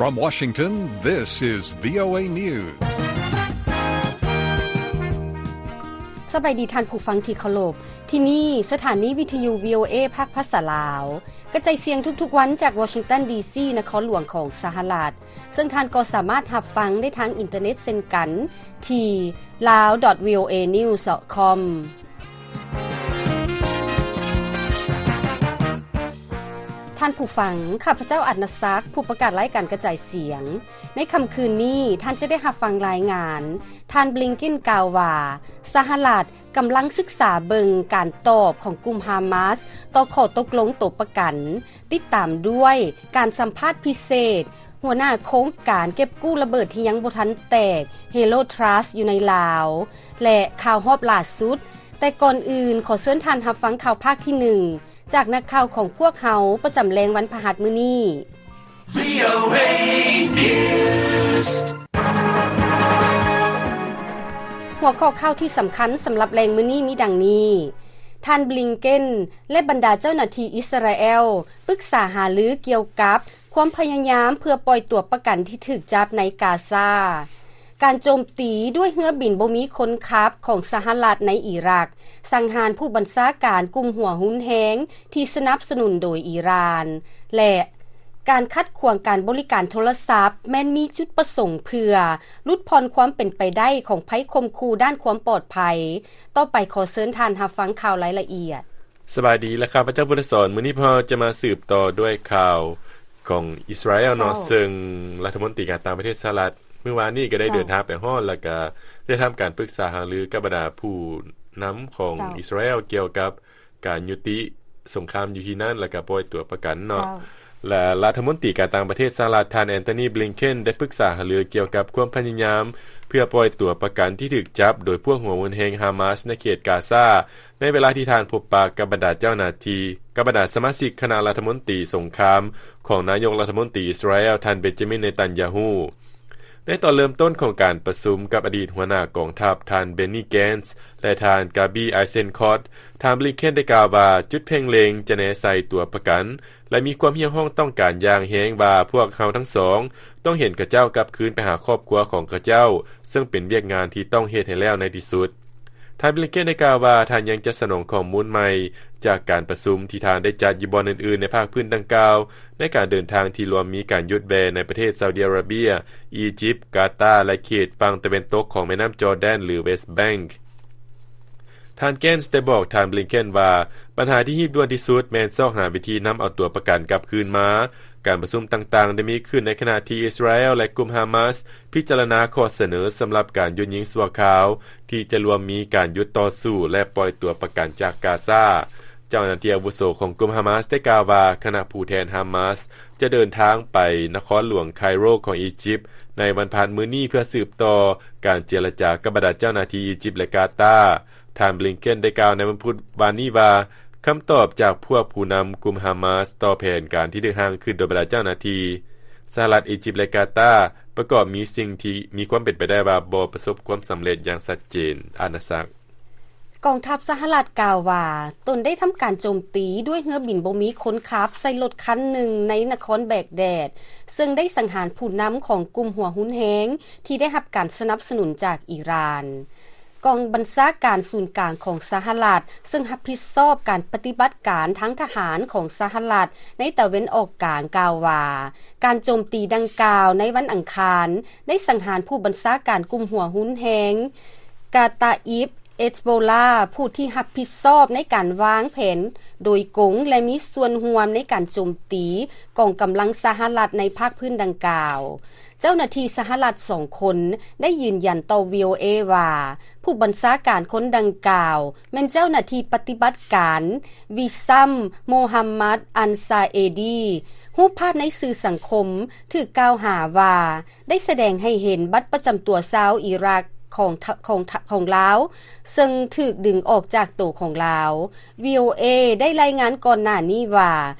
From Washington, this is VOA News. ສະບາຍດີທ່ານຜູ້ຟັງທີ່ເຄົາລົບ. ທີ່ນີ້ສະຖານີວິທະຍຸ VOA ພາກພາສາລາວ ກະຈາຍສຽງທຸກໆວັນຈາກວໍຊິງຕັນ ດີຊີ ນະຄອນຫຼວງຂອງສະຫະລັດ, ເຊິ່ງທ່ານກໍສາມາດຮັບຟັງໄດ້ທາງອິນເຕີເນັດເຊັ່ນກັນ ທີ່ ลาว ดอท วีโอเอ นิวส์ ดอท คอม ທ່ານຜູ້ຟັງ, ຂ້າພະເຈົ້າ ອັດນະສັກ ຜູ້ປະກາດລາຍການກະຈາຍສຽງ. ໃນຄ່ຳຄືນນີ້ ທ່ານຈະໄດ້ຮັບຟັງລາຍງານ ທ່ານ ບລິງເກັນ ກ່າວວ່າ ສະຫະລັດກຳລັງສຶກສາເບິ່ງການຕອບຂອງກຸ່ມຮາມາສຕໍ່ຂໍ້ຕົກລົງໂຕປະກັນ, ຕິດຕາມດ້ວຍການສຳພາດພິເສດ ຫົວໜ້າໂຄງການເກັບກູ້ລະເບີດທີ່ຍັງບໍ່ທັນແຕກ Halo Trust ຢູ່ໃນລາວ ແລະ ຂ່າວຮອບຫຼ້າສຸດ. ແຕ່ກ່ອນອື່ນ ຂໍເຊີນທ່ານຮັບຟັງຂ່າວພາກທີໜຶ່ງ ຈາກນັກຂ່າວຂອງພວກເຮົາປະຈຳແລງວັນພະຫັດມື້ນີ້. VOA News ຫົວຂໍ້ຂ່າວທີ່ສຳຄັນສຳລັບແລງມື້ນີ້ມີດັ່ງນີ້: ທ່ານ ບລິງເກັນ ແລະ ບັນດາເຈົ້າໜ້າທີ່ອິສຣາແອລ ປຶກສາຫາລືກ່ຽວກັບຄວາມພະຍາຍາມເພື່ອປ່ອຍຕົວປະກັນທີ່ຖືກຈັບໃນກາຊາ. ການໂຈມຕີດ້ວຍເຮືອບິນບໍ່ມີຄົນຂັບຂອງສະຫະລັດໃນອີຣັກ, ສັງຫານຜູ້ບັນຊາການກຸ່ມຫົວຮຸນແຮງທີ່ສະໜັບສະໜູນໂດຍອີຣານ ແລະ ການຂັດຂວາງການບໍລິການໂທລະສັບ ແມ່ນມີຈຸດປະສົງເພື່ອຫຼຸດຜ່ອນຄວາມເປັນໄປໄດ້ຂອງໄພຂົ່ມຂູ່ດ້ານຄວາມປອດໄພ. ຕໍ່ໄປຂໍເຊີນທ່ານຮັບຟັງຂ່າວລາຍລະອຽດ. ສະບາຍດີ ແລະ ຂ້າພະເຈົ້າ ບຸນສອນ. ມື້ນີ້ພວກເຮົາຈະມາສືບຕໍ່ດ້ວຍຂ່າວຂອງອິສຣາແອລເນາະ, ເຈົ້າ. ເຊິ່ງລັດຖະມົນຕີການຕ່າງປະເທດສະຫະລັດ ມື້ວານນີ້ກໍໄດ້ ເຈົ້າ. ເດີນທາງໄປຮອດ ແລ້ວກໍໄດ້ທຳການປຶກສາຫາລືກັບບັນດາຜູ້ນຳຂອງ ເຈົ້າ. ອິສຣາແອລກ່ຽວກັບການຍຸຕິສົງຄາມຢູ່ທີ່ນັ້ນ ແລ້ວກໍປ່ອຍຕົວປະກັນເນາະ. ເຈົ້າ. ແລະ ລັດຖະມົນຕີການຕ່າງປະເທດສະຫະລັດ ທ່ານ ແອນໂທນີ ບລິງເກັນ ໄດ້ປຶກສາຫາລືກ່ຽວກັບຄວາມພະຍາຍາມເພື່ອປ່ອຍຕົວປະກັນທີ່ຖືກຈັບໂດຍພວກຫົວຮຸນແຮງຮາມາສໃນເຂດກາຊາ ໃນເວລາທີ່ທ່ານພົບປະກັບບັນດາເຈົ້າໜ້າທີ່ ກັບບັນດາສະມາຊິກຄະນະລັດຖະມົນຕີສົງຄາມຂອງນາຍົກລັດຖະມົນຕີອິສຣາແອລ ທ່ານ ເບນຈາມິນ ເນຕັນຢາຮູ້. ໃນຕອນເລີ່ມຕົ້ນຂອງການປະຊຸມກັບອະດີດຫົວໜ້າກອງທັບ ທ່ານ ເບນນີ ແກນສ໌ ແລະ ທ່ານ ກາບີ ໄອເຊັນຄອດ ທ່ານ ບລິງເກັນ ໄດ້ກ່າວວ່າ ຈຸດເພັ່ງເລັງຈະແນໃສ່ຕົວປະກັນ ແລະ ມີຄວາມຮຽກຮ້ອງຕ້ອງການຢ່າງແຮງວ່າ ພວກເຮົາທັງສອງຕ້ອງເຫັນເຂົາເຈົ້າກັບຄືນໄປຫາຄອບຄົວຂອງເຂົາເຈົ້າ, ເຊິ່ງເປັນວຽກງານທີ່ຕ້ອງເຮັດໃຫ້ແລ້ວໃນທີ່ສຸດ. ທ່ານ ບລິງເກັນ ໄດ້ກ່າວວ່າ ທ່ານຍັງຈະສະໜອງຂໍ້ມູນໃໝ່ຈາກການປະຊຸມທີ່ທ່ານໄດ້ຈັດຢູ່ບ່ອນອື່ນໆໃນພາກພື້ນດັ່ງກ່າວ ໃນການເດີນທາງທີ່ລວມມີການຢຸດແວ່ໃນປະເທດຊາວດີອາຣາເບຍ, ອີຢິບ, ກາຕາ ແລະ ເຂດຝັ່ງຕາເວັນຕົກຂອງແມ່ນ້ຳຈໍແດນ ຫຼື ເວສແບັງ. ທ່ານ ແກນສ໌ ໄດ້ບອກທ່ານ ບລິງເກັນ ວ່າ ບັນຫາທີ່ຮີບດ່ວນທີ່ສຸດແມ່ນຊອກຫາວິທີນຳເອົາຕົວປະກັນກັບຄືນມາ. ການປະຊຸມຕ່າງໆໄດ້ມີຂຶ້ນໃນຂະນະທີ່ອິສຣາແອລ ແລະ ກຸ່ມຮາມາສ ພິຈາລະນາຂໍ້ສະເໜີສຳລັບການຢຸດຍິງຊົ່ວຄາວ ທີ່ຈະລວມມີການຢຸດຕໍ່ສູ້ ແລະ ປ່ອຍຕົວປະກັນຈາກກາຊາ. ເຈົ້າໜ້າທີ່ອາວຸໂສຂອງກຸ່ມຮາມາສ ໄດ້ກ່າວວ່າ ຄະນະຜູ້ແທນຮາມາສ ຈະເດີນທາງໄປນະຄອນຫຼວງໄຄໂຣຂອງອີຢິບ ໃນວັນພະຫັດມື້ນີ້ ເພື່ອສືບຕໍ່ການເຈລະຈາກັບບັນດາເຈົ້າໜ້າທີ່ອີຢິບ ແລະ ກາຕາ. ທ່ານ ບລິງເກັນ ໄດ້ກ່າວໃນວັນພຸດວານນີ້ວ່າ ຄຳຕອບຈາກພວກຜູ້ນຳກຸ່ມຮາມາສຕໍ່ແຜນການທີ່ຖືກຮ່າງຂຶ້ນໂດຍບັນດາເຈົ້າໜ້າທີ່ສະຫະລັດ, ອີຢິບ ແລະ ກາຕາ ປະກອບມີສິ່ງທີ່ມີຄວາມເປັນໄປໄດ້ວ່າບໍ່ປະສົບຄວາມສຳເລັດຢ່າງຊັດເຈນ. ອານາສັກ. ກອງທັບສະຫະລັດກ່າວວ່າ ຕົນໄດ້ທຳການໂຈມຕີດ້ວຍເຮືອບິນບໍ່ມີຄົນຂັບໃສ່ລົດຄັນໜຶ່ງໃນນະຄອນແບກແດດ, ເຊິ່ງໄດ້ສັງຫານຜູ້ນຳຂອງກຸ່ມຫົວຮຸນແຮງທີ່ໄດ້ຮັບການສະໜັບສະໜູນຈາກອີຣານ. ກອງບັນຊາການສູນກາງຂອງສະຫະລັດ ເຊິ່ງຮັບຜິດຊອບການປະຕິບັດການທາງທະຫານຂອງສະຫະລັດໃນຕາເວັນອອກກາງ ກ່າວວ່າ ການໂຈມຕີດັ່ງກ່າວໃນວັນອັງຄານ ໄດ້ສັງຫານຜູ້ບັນຊາການກຸ່ມຫົວຮຸນແຮງ ກາຕາອິບ ເອສໂບລາ ຜູ້ທີ່ຮັບຜິດຊອບໃນການວາງແຜນໂດຍກົງ ແລະ ມີສ່ວນຮ່ວມໃນການໂຈມຕີກອງກຳລັງສະຫະລັດໃນພາກພື້ນດັ່ງກ່າວ. ເຈົ້າໜ້າທີ່ສະຫະລັດສອງຄົນໄດ້ຢືນຢັນຕໍ່ ວີໂອເອ ວ່າ ຜູ້ບັນຊາການຄົນດັ່ງກ່າວແມ່ນເຈົ້າໜ້າທີ່ປະຕິບັດການ ວິຊຳ ໂມຮັມມັດ ອັນຊາເອດີ. ຮູບພາບໃນສື່ສັງຄົມຖືກກ່າວຫາວ່າ ໄດ້ສະແດງໃຫ້ເຫັນບັດປະຈຳຕົວຊາວອີຣັກຂອງ ຂອງ ຂອງລາວ ເຊິ່ງຖືກດຶງອອກຈາກໂຕຂອງລາວ. ວີໂອເອ ໄດ້ລາຍງານກ່ອນໜ້ານີ້ວ່າ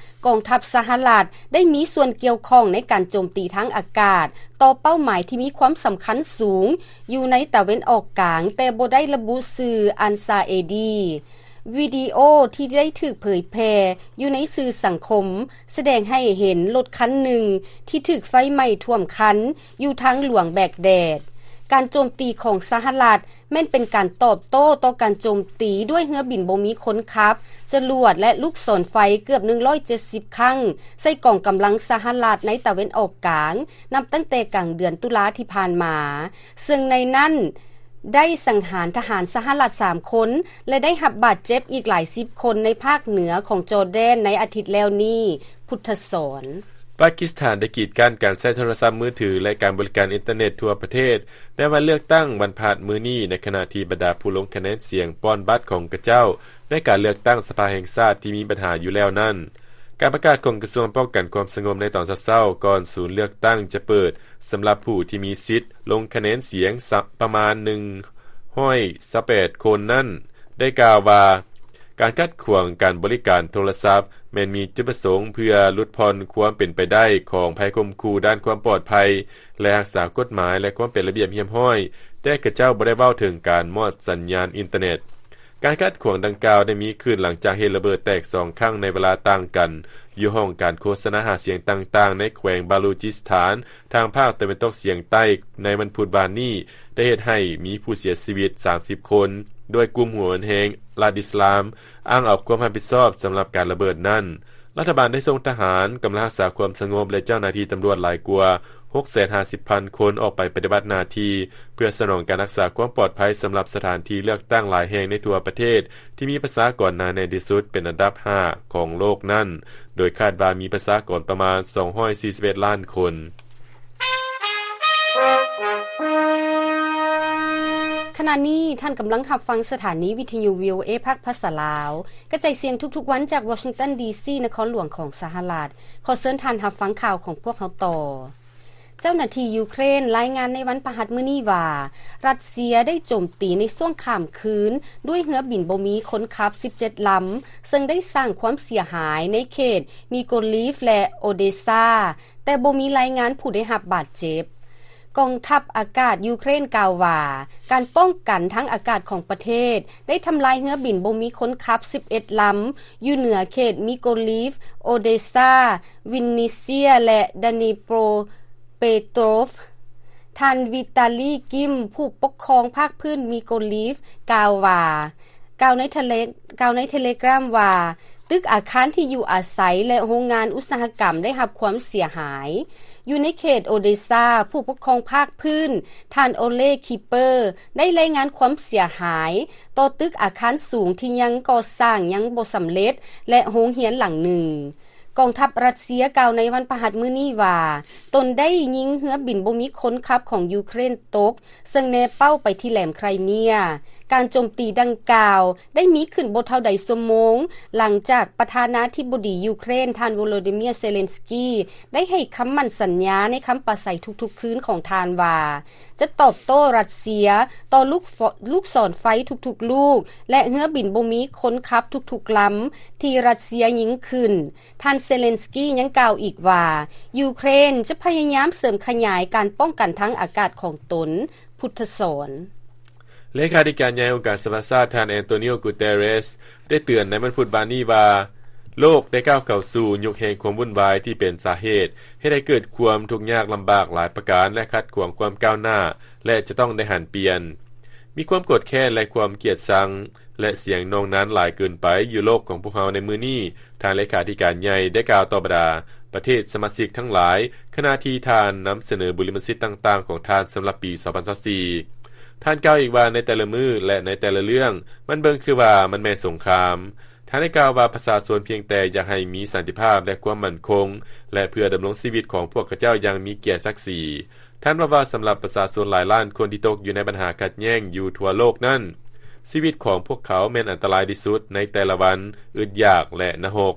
ກອງທັບສະຫະລັດໄດ້ມີສ່ວນກ່ຽວຂ້ອງໃນການໂຈມຕີທາງອາກາດຕໍ່ເປົ້າໝາຍທີ່ມີຄວາມສຳຄັນສູງຢູ່ໃນຕາເວັນອອກກາງ, ແຕ່ບໍ່ໄດ້ລະບຸຊື່ອັນຊາເອດີ. ວິດີໂອທີ່ໄດ້ຖືກເຜີຍແຜ່ຢູ່ໃນສື່ສັງຄົມ ສະແດງໃຫ້ເຫັນລົດຄັນໜຶ່ງທີ່ຖືກໄຟໄໝ້ຖ້ວມຄັນຢູ່ທາງຫຼວງແບກແດດ. ການໂຈມຕີຂອງສະຫະລັດແມ່ນເປັນການຕອບໂຕ້ຕໍ່ການໂຈມຕີດ້ວຍເຮືອບິນບໍ່ມີຄົນຂັບ, ຈະຫຼວດ ແລະ ລູກສອນໄຟເກືອບໜຶ່ງຮ້ອຍເຈັດສິບຄັ້ງໃສ່ກອງກຳລັງສະຫະລັດໃນຕາເວັນອອກກາງ ນັບຕັ້ງແຕ່ກາງເດືອນຕຸລາທີ່ຜ່ານມາ, ເຊິ່ງໃນນັ້ນ ໄດ້ສັງຫານທະຫານສະຫະລັດສາມຄົນ ແລະ ໄດ້ຮັບບາດເຈັບອີກຫຼາຍສິບຄົນໃນພາກເໜືອຂອງຈໍແດນໃນອາທິດແລ້ວນີ້. ພຸດທະສອນ. ປາກິສຖານໄດ້ກີດກັ້ນການໃຊ້ໂທລະສັບມືຖື ແລະ ການບໍລິການອິນເຕີເນັດທົ່ວປະເທດ ໃນວັນເລືອກຕັ້ງວັນພະຫັດມື້ນີ້, ໃນຂະນະທີ່ບັນດາຜູ້ລົງຄະແນນສຽງປ່ອນບັດຂອງຂະເຈົ້າໃນການເລືອກຕັ້ງສະພາແຫ່ງຊາດທີ່ມີບັນຫາຢູ່ແລ້ວນັ້ນ. ການປະກາດຂອງກະຊວງປ້ອງກັນຄວາມສະຫງົບໃນຕອນເຊົ້າໆ ກ່ອນສູນເລືອກຕັ້ງຈະເປີດ ສຳລັບຜູ້ທີ່ມີສິດລົງຄະແນນສຽງສະ ປະມານໜຶ່ງຮ້ອຍຊາວແປດຄົນນັ້ນ ໄດ້ກ່າວວ່າ ການຂັດຂວາງການບໍລິການໂທລະສັບ ແມ່ນມີຈຸດປະສົງເພື່ອຫຼຸດຜ່ອນຄວາມເປັນໄປໄດ້ຂອງໄພຂົ່ມຂູ່ດ້ານຄວາມປອດໄພ ແລະ ຮັກສາກົດໝາຍ ແລະ ຄວາມເປັນລະບຽບຮຽບຮ້ອຍ, ແຕ່ຂະເຈົ້າບໍ່ໄດ້ເວົ້າເຖິງການມອດສັນຍານອິນເຕີເນັດ. ການຂັດຂວາງດັ່ງກ່າວໄດ້ມີຂຶ້ນຫຼັງຈາກເຫດລະເບີດແຕກສອງຄັ້ງໃນເວລາຕ່າງກັນ ຢູ່ຫ້ອງການໂຄສະນາຫາສຽງຕ່າງໆ ໃນແຂວງບາລູຈິສຖານ ທາງພາກຕາເວັນຕົກສຽງໃຕ້ ໃນວັນພຸດວານນີ້ ໄດ້ເຮັດໃຫ້ມີຜູ້ເສຍຊີວິດສາມສິບຄົນ, ໂດຍກຸ່ມຫົວຮຸນແຮງລັດອິດສະລາມ ອ້າງເອົາຄວາມຮັບຜິດຊອບສຳລັບການລະເບີດນັ້ນ. ລັດຖະບານໄດ້ສົ່ງທະຫານ, ກຳລັງຮັກສາຄວາມສະຫງົບ ແລະ ເຈົ້າໜ້າທີ່ຕຳຫຼວດຫຼາຍກວ່າ ຫົກແສນຫ້າສິບພັນຄົນ ອອກໄປປະຕິບັດໜ້າທີ່ ເພື່ອສະໜອງການຮັກສາຄວາມປອດໄພສຳລັບສະຖານທີ່ເລືອກຕັ້ງຫຼາຍແຫ່ງໃນທົ່ວປະເທດ ທີ່ມີປະຊາກອນໜາແໜ້ນທີ່ສຸດເປັນອັນດັບຫ້າຂອງໂລກນັ້ນ, ໂດຍຄາດວ່າມີປະຊາກອນປະມານສອງຮ້ອຍສີ່ສິບເອັດລ້ານຄົນ. ຂະນະນີ້ທ່ານກຳລັງຮັບຟັງສະຖານີວິທະຍຸ ວີໂອເອ ພາກພາສາລາວ ກະຈາຍສຽງທຸກໆວັນຈາກວໍຊິງຕັນ ດີຊີ ນະຄອນຫຼວງຂອງສະຫະລັດ. ຂໍເຊີນທ່ານຮັບຟັງຂ່າວຂອງພວກເຮົາຕໍ່. ເຈົ້າໜ້າທີ່ຢູເຄຣນລາຍງານໃນວັນພະຫັດມື້ນີ້ວ່າ ຣັດເຊຍໄດ້ໂຈມຕີໃນຊ່ວງຂ້າມຄືນດ້ວຍເຮືອບິນບໍ່ມີຄົນຂັບສິບເຈັດລຳ, ເຊິ່ງໄດ້ສ້າງຄວາມເສຍຫາຍໃນເຂດມີໂກລີຟ ແລະ ໂອເດຊາ, ແຕ່ບໍ່ມີລາຍງານຜູ້ໄດ້ຮັບບາດເຈັບ. ກອງທັບອາກາດຢູເຄຣນກ່າວວ່າ ການປ້ອງກັນທາງອາກາດຂອງປະເທດ ໄດ້ທຳລາຍເຮືອບິນບໍ່ມີຄົນຂັບສິບເອັດລຳ ຢູ່ເໜືອເຂດມີໂກລີຟ, ໂອເດຊາ, ວິນນິເຊຍ ແລະ ດານີໂປຣເປໂຕຣຟ. ທ່ານ ວິຕາລີ ກິມ ຜູ້ປົກຄອງພາກພື້ນມີໂກລີຟ ກ່າວວ່າ ກ່າວໃນເທເລ ກ່າວໃນເທເລກຣາມວ່າ ຕຶກອາຄານທີ່ຢູ່ອາໄສ ແລະ ໂຮງງານອຸດສາຫະກຳໄດ້ຮັບຄວາມເສຍຫາຍ. ຢູ່ໃນເຂດໂອເດຊາ, ຜູ້ປົກຄອງພາກພື້ນ ທ່ານ ໂອເລ ຄີເປີ ໄດ້ລາຍງານຄວາມເສຍຫາຍຕໍ່ຕຶກອາຄານສູງທີ່ຍັງກໍ່ສ້າງຍັງບໍ່ສຳເລັດ ແລະ ໂຮງຮຽນຫຼັງໜຶ່ງ. ກອງທັບຣັດເຊຍກ່າວໃນວັນພະຫັດມື້ນີ້ວ່າ ຕົນໄດ້ຍິງເຮືອບິນບໍ່ມີຄົນຂັບຂອງຢູເຄຣນຕົກ ເຊິ່ງແນເປົ້າໄປທີ່ແຫຼມໄຄຣເມຍ. ການໂຈມຕີດັ່ງກ່າວໄດ້ມີຂຶ້ນບໍ່ເທົ່າໃດຊົ່ວໂມງ ຫຼັງຈາກປະທານາທິບໍດີຢູເຄຣນ ທ່ານ ໂວໂລດີເມຍ ເຊເລັນສກີ ໄດ້ໃຫ້ຄຳໝັ້ນສັນຍາໃນຄຳປາໄສທຸກໆຄືນຂອງທ່ານວ່າ ຈະຕອບໂຕ້ຣັດເຊຍຕໍ່ລູກ ລູກສອນໄຟທຸກໆລູກ ແລະ ເຮືອບິນບໍ່ມີຄົນຂັບທຸກໆລຳທີ່ຣັດເຊຍຍິງຂຶ້ນ. ທ່ານ ເຊເລັນສກີ ຍັງກ່າວອີກວ່າ ຢູເຄຣນຈະພະຍາຍາມເສີມຂະຫຍາຍການປ້ອງກັນທາງອາກາດຂອງຕົນ. ພຸດທະສອນ. ເລຂາທິການໃຫຍ່ອົງການສະຫະປະຊາຊາດ ທ່ານ ແອນໂຕນີໂອ ກູເຕເຣສ ໄດ້ເຕືອນໃນວັນພຸດວານນີ້ວ່າ ໂລກໄດ້ກ້າວເຂົ້າສູ່ຍຸກແຫ່ງຄວາມວຸ່ນວາຍທີ່ເປັນສາເຫດເຮັດໃຫ້ເກີດຄວາມທຸກຍາກລຳບາກຫຼາຍປະການ ແລະ ຂັດຂວາງຄວາມກ້າວໜ້າ ແລະ ຈະຕ້ອງໄດ້ຫັນປ່ຽນ. ມີຄວາມໂກດແຄ້ນ ແລະ ຄວາມກຽດຊັງ ແລະ ສຽງໜ່ວງນັ້ນຫຼາຍເກີນໄປຢູ່ໂລກຂອງພວກເຮົາໃນມື້ນີ້, ທ່ານເລຂາທິການໃຫຍ່ໄດ້ກ່າວຕໍ່ບັນດາປະເທດສະມາຊິກທັງຫຼາຍ ຂະນະທີ່ທ່ານນຳສະເໜີບຸລິມະສິດຕ່າງໆຂອງທ່ານສຳລັບປີສອງພັນຊາວສີ່. ທ່ານກ່າວອີກວ່າ ໃນແຕ່ລະມື້ ແລະ ໃນແຕ່ລະເລື່ອງ ມັນເບິ່ງຄືວ່າມັນແມ່ນສົງຄາມ. ທ່ານໄດ້ກ່າວວ່າ ປະຊາຊົນພຽງແຕ່ຢາກໃຫ້ມີສັນຕິພາບ ແລະ ຄວາມໝັ້ນຄົງ ແລະ ເພື່ອດຳລົງຊີວິດຂອງພວກເຂົາເຈົ້າຢ່າງມີກຽດສັກສີ. ທ່ານເວົ້າວ່າ ສຳລັບປະຊາຊົນຫຼາຍລ້ານຄົນທີ່ຕົກຢູ່ໃນບັນຫາຂັດແຍ່ງຢູ່ທົ່ວໂລກນັ້ນ, ຊີວິດຂອງພວກເຂົາແມ່ນອັນຕະລາຍທີ່ສຸດໃນແຕ່ລະວັນ, ອຶດຢາກ ແລະ ນະຮົກ.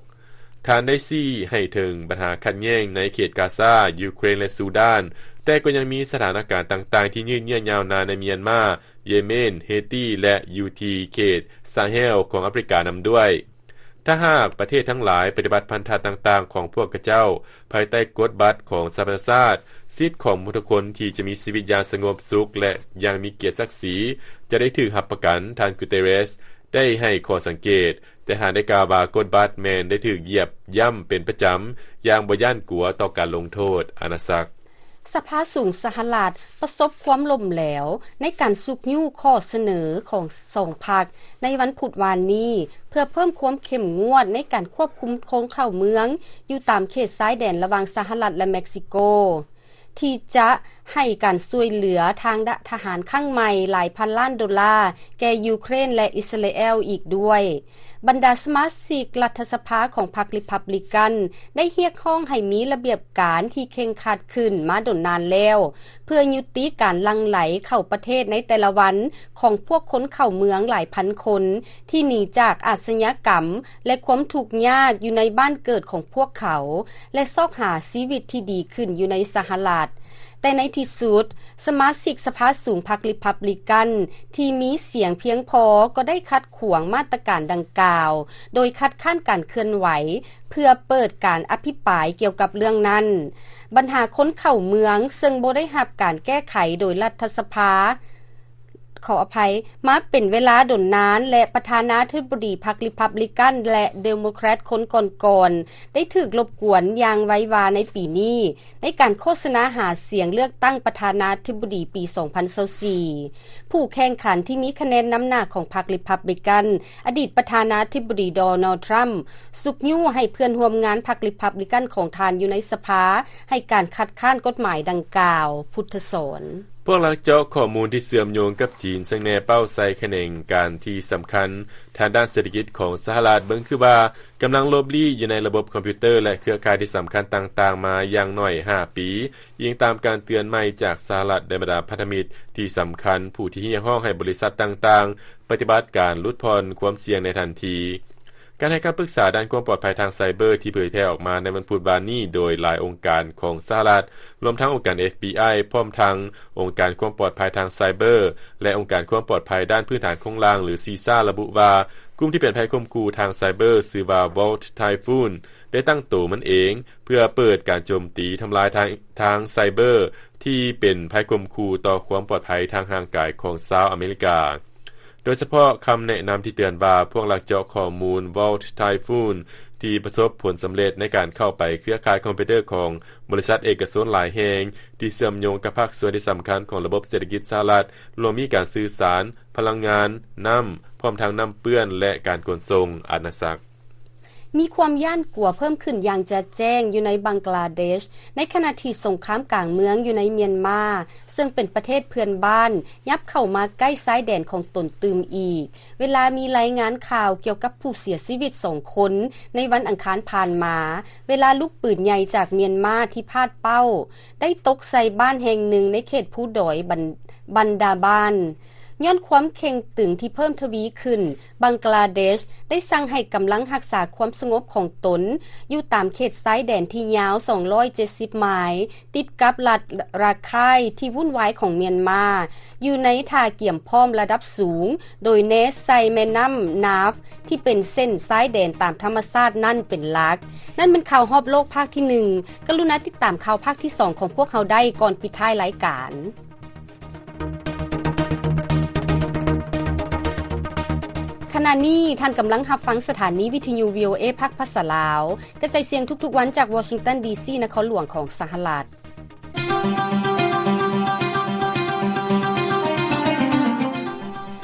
ທ່ານໄດ້ຊີ້ໃຫ້ເຖິງບັນຫາຂັດແຍ່ງໃນເຂດກາຊາ, ຢູເຄຣນ ແລະ ຊູດານ, ແຕ່ກໍຍັງມີສະຖານະການຕ່າງໆທີ່ຍືດເຍື້ອຍາວນານໃນມຽນມາ, ເຢເມນ, ເຮຕີ ແລະ ຢູ່ທີ່ເຂດຊາແຮວຂອງອາຟຣິການຳດ້ວຍ. ຖ້າຫາກປະເທດທັງຫຼາຍປະຕິບັດພັນທະຕ່າງໆຂອງພວກເຂົາເຈົ້າ ພາຍໃຕ້ກົດບັດຂອງສະຫະປະຊາຊາດ, ສິດຂອງມະນຸດທຸກຄົນທີ່ຈະມີຊີວິດຢ່າງສະຫງົບສຸກ ແລະ ຢ່າງມີກຽດສັກສີ ຈະໄດ້ຖືກຮັບປະກັນ, ທ່ານ ກູເຕເຣສ ໄດ້ໃຫ້ຂໍ້ສັງເກດ, ແຕ່ທ່ານໄດ້ກ່າວວ່າກົດບັດແມ່ນໄດ້ຖືກຢຽບຢ້ຳເປັນປະຈຳຢ່າງບໍ່ຢ້ານກົວຕໍ່ການລົງໂທດ. ອານາສັກ. ສະພາສູງສະຫະລັດປະສົບຄວາມລົ້ມແຫຼວໃນການຊຸກຍູ້ຂໍ້ສະເໜີຂອງສອງພັກໃນວັນພຸດວານນີ້ ເພື່ອເພີ່ມຄວາມເຂັ້ມງວດໃນການຄວບຄຸມຄົນເຂົ້າເມືອງຢູ່ຕາມເຂດຊາຍແດນລະຫວ່າງສະຫະລັດ ແລະ ເມັກຊິໂກ ທີ່ຈະໃຫ້ການຊ່ວຍເຫຼືອທາງທະຫານຄັ້ງໃໝ່ຫຼາຍພັນລ້ານໂດລາແກ່ຢູເຄຣນ ແລະ ອິດສະຣາແອລອີກດ້ວຍ. ບັນດາສະມາຊິກລັດຖະສະພາຂອງພັກຣີພັບລິກັນ ໄດ້ຮຽກຮ້ອງໃຫ້ມີລະບຽບການທີ່ເຄັ່ງຄັດຂຶ້ນມາດົນນານແລ້ວ ເພື່ອຍຸຕິການຫຼັ່ງໄຫຼເຂົ້າປະເທດໃນແຕ່ລະວັນຂອງພວກຄົນເຂົ້າເມືອງຫຼາຍພັນຄົນ ທີ່ໜີຈາກອາຊະຍາກຳ ແລະ ຄວາມທຸກຍາກຢູ່ໃນບ້ານເກີດຂອງພວກເຂົາ ແລະ ຊອກຫາຊີວິດທີ່ດີຂຶ້ນຢູ່ໃນສະຫະລັດ. ແຕ່ໃນທີ່ສຸດ, ສະມາຊິກສະພາສູງພັກຣີພັບລິກັນທີ່ມີສຽງພຽງພໍກໍໄດ້ຂັດຂວາງມາດຕະການດັ່ງກ່າວ ໂດຍຄັດຄ້ານການເຄື່ອນໄຫວເພື່ອເປີດການອະພິປາຍກ່ຽວກັບເລື່ອງນັ້ນ. ບັນຫາຄົນເຂົ້າເມືອງເຊິ່ງບໍ່ໄດ້ຮັບການແກ້ໄຂໂດຍລັດຖະສະພາ ຂໍອະໄພ, ມາເປັນເວລາດົນນານ ແລະ ປະທານາທິບໍດີພັກຣີພັບລິກັນ ແລະ ເດໂມແຄຣດຄົນກ່ອນໆ ໄດ້ຖືກລົບກວນຢ່າງໄວວາໃນປີນີ້ ໃນການໂຄສະນາຫາສຽງເລືອກຕັ້ງປະທານາທິບໍດີປີສອງພັນຊາວສີ່. ຜູ້ແຂ່ງຂັນທີ່ມີຄະແນນນຳໜ້າຂອງພັກຣີພັບລິກັນ, ອະດີດປະທານາທິບໍດີ ໂດນັລ ທຣຳ ຊຸກຍູ້ໃຫ້ເພື່ອນຮ່ວມງານພັກຣີພັບລິກັນຂອງທ່ານຢູ່ໃນສະພາ ໃຫ້ການຄັດຄ້ານກົດໝາຍດັ່ງກ່າວ. ພຸດທະສອນ. ພວກລັກເຈາະຂໍ້ມູນທີ່ເຊື່ອມໂຍງກັບຈີນ ເຊິ່ງແນເປົ້າໃສ່ຂະແໜງການທີ່ສຳຄັນທາງດ້ານເສດຖະກິດຂອງສະຫະລັດ ເບິ່ງຄືວ່າກຳລັງຫຼົບລີ້ຢູ່ໃນລະບົບຄອມພິວເຕີ ແລະ ເຄືອຂ່າຍທີ່ສຳຄັນຕ່າງໆມາຢ່າງໜ້ອຍຫ້າປີ, ອີງຕາມການເຕືອນໃໝ່ຈາກສະຫະລັດ ແລະ ບັນດາພັນທະມິດທີ່ສຳຄັນ ຜູ້ທີ່ຮຽກຮ້ອງໃຫ້ບໍລິສັດຕ່າງໆປະຕິບັດການຫຼຸດຜ່ອນຄວາມສ່ຽງໃນທັນທີ. ການໃຫ້ຄຳປຶກສາດ້ານຄວາມປອດໄພທາງໄຊເບີທີ່ເຜີຍແຜ່ອອກມາໃນວັນພຸດວານນີ້ ໂດຍຫຼາຍອົງການຂອງສະຫະລັດ, ລວມທັງອົງການ ເອັຟບີໄອ ພ້ອມທັງອົງການຄວາມປອດໄພທາງໄຊເບີ ແລະ ອົງການຄວາມປອດໄພດ້ານພື້ນຖານໂຄງລ່າງ ຫຼື ຊີຊາ ລະບຸວ່າ ກຸ່ມທີ່ເປັນໄພຂົ່ມຂູ່ທາງໄຊເບີ ຊື່ວ່າ Volt Typhoon ໄດ້ຕັ້ງໂຕມັນເອງ ເພື່ອເປີດການໂຈມຕີທຳລາຍທາງ ທາງໄຊເບີ ທີ່ເປັນໄພຂົ່ມຂູ່ຕໍ່ຄວາມປອດໄພທາງຮ່າງກາຍຂອງຊາວອາເມລິກາ. ໂດຍສະເພາະຄຳແນະນຳທີ່ເຕືອນວ່າ ພວກລັກເຈາະຂໍ້ມູນ Volt Typhoon ທີ່ປະສົບຜົນສຳເລັດໃນການເຂົ້າໄປເຄືອຂ່າຍຄອມພິວເຕີຂອງບໍລິສັດເອກະຊົນຫຼາຍແຫ່ງ ທີ່ເຊື່ອມໂຍງກັບພາກສ່ວນທີ່ສຳຄັນຂອງລະບົບເສດຖະກິດສະຫະລັດ, ລວມມີການສື່ສານ, ພະລັງງານ, ນ້ຳ, ພ້ອມທັງນ້ຳເປື້ອນ ແລະ ການຂົນສົ່ງ. ອານາສັກ. ມີຄວາມຢ້ານກົວເພີ່ມຂຶ້ນຢ່າງຈະແຈ້ງຢູ່ໃນບັງກລາເດດ ໃນຂະນະທີ່ສົງຄາມກາງເມືອງຢູ່ໃນມຽນມາ ເຊິ່ງເປັນປະເທດເພື່ອນບ້ານ ຫຍັບເຂົ້າມາໃກ້ຊາຍແດນຂອງຕົນຕື່ມອີກ, ເວລາມີລາຍງານຂ່າວກ່ຽວກັບຜູ້ເສຍຊີວິດສອງຄົນໃນວັນອັງຄານຜ່ານມາ, ເວລາລູກປືນໃຫຍ່ຈາກມຽນມາທີ່ພາດເປົ້າ ໄດ້ຕົກໃສ່ບ້ານແຫ່ງໜຶ່ງໃນເຂດພູດອຍບັນ ບັນດາບານ. ຍ້ອນຄວາມເຄັ່ງຕຶງທີ່ເພີ່ມທະວີຂຶ້ນ, ບັງກລາເດດໄດ້ສັ່ງໃຫ້ກຳລັງຮັກສາຄວາມສະຫງົບຂອງຕົນຢູ່ຕາມເຂດຊາຍແດນທີ່ຍາວສອງຮ້ອຍເຈັດສິບໄມລ໌ ຕິດກັບລັດຣາໄຄນ໌ທີ່ວຸ່ນວາຍຂອງມຽນມາ, ຢູ່ໃນທ່າກຽມພ້ອມລະດັບສູງ, ໂດຍແນໃສ່ແມ່ນ້ຳນາຟ ທີ່ເປັນເສັ້ນຊາຍແດນຕາມທຳມະຊາດນັ້ນເປັນຫຼັກ. ນັ້ນແມ່ນຂ່າວຮອບໂລກພາກທີໜຶ່ງ. ກະລຸນາຕິດຕາມຂ່າວພາກທີສອງຂອງພວກເຮົາໄດ້ກ່ອນປິດທ້າຍລາຍການ. ຂະນະນີ້ທ່ານກຳລັງຮັບຟັງສະຖານີວິທະຍຸ ວີໂອເອ ພາກພາສາລາວ ກະຈາຍສຽງທຸກໆວັນຈາກວໍຊິງຕັນ ດີຊີ ນະຄອນຫຼວງຂອງສະຫະລັດ.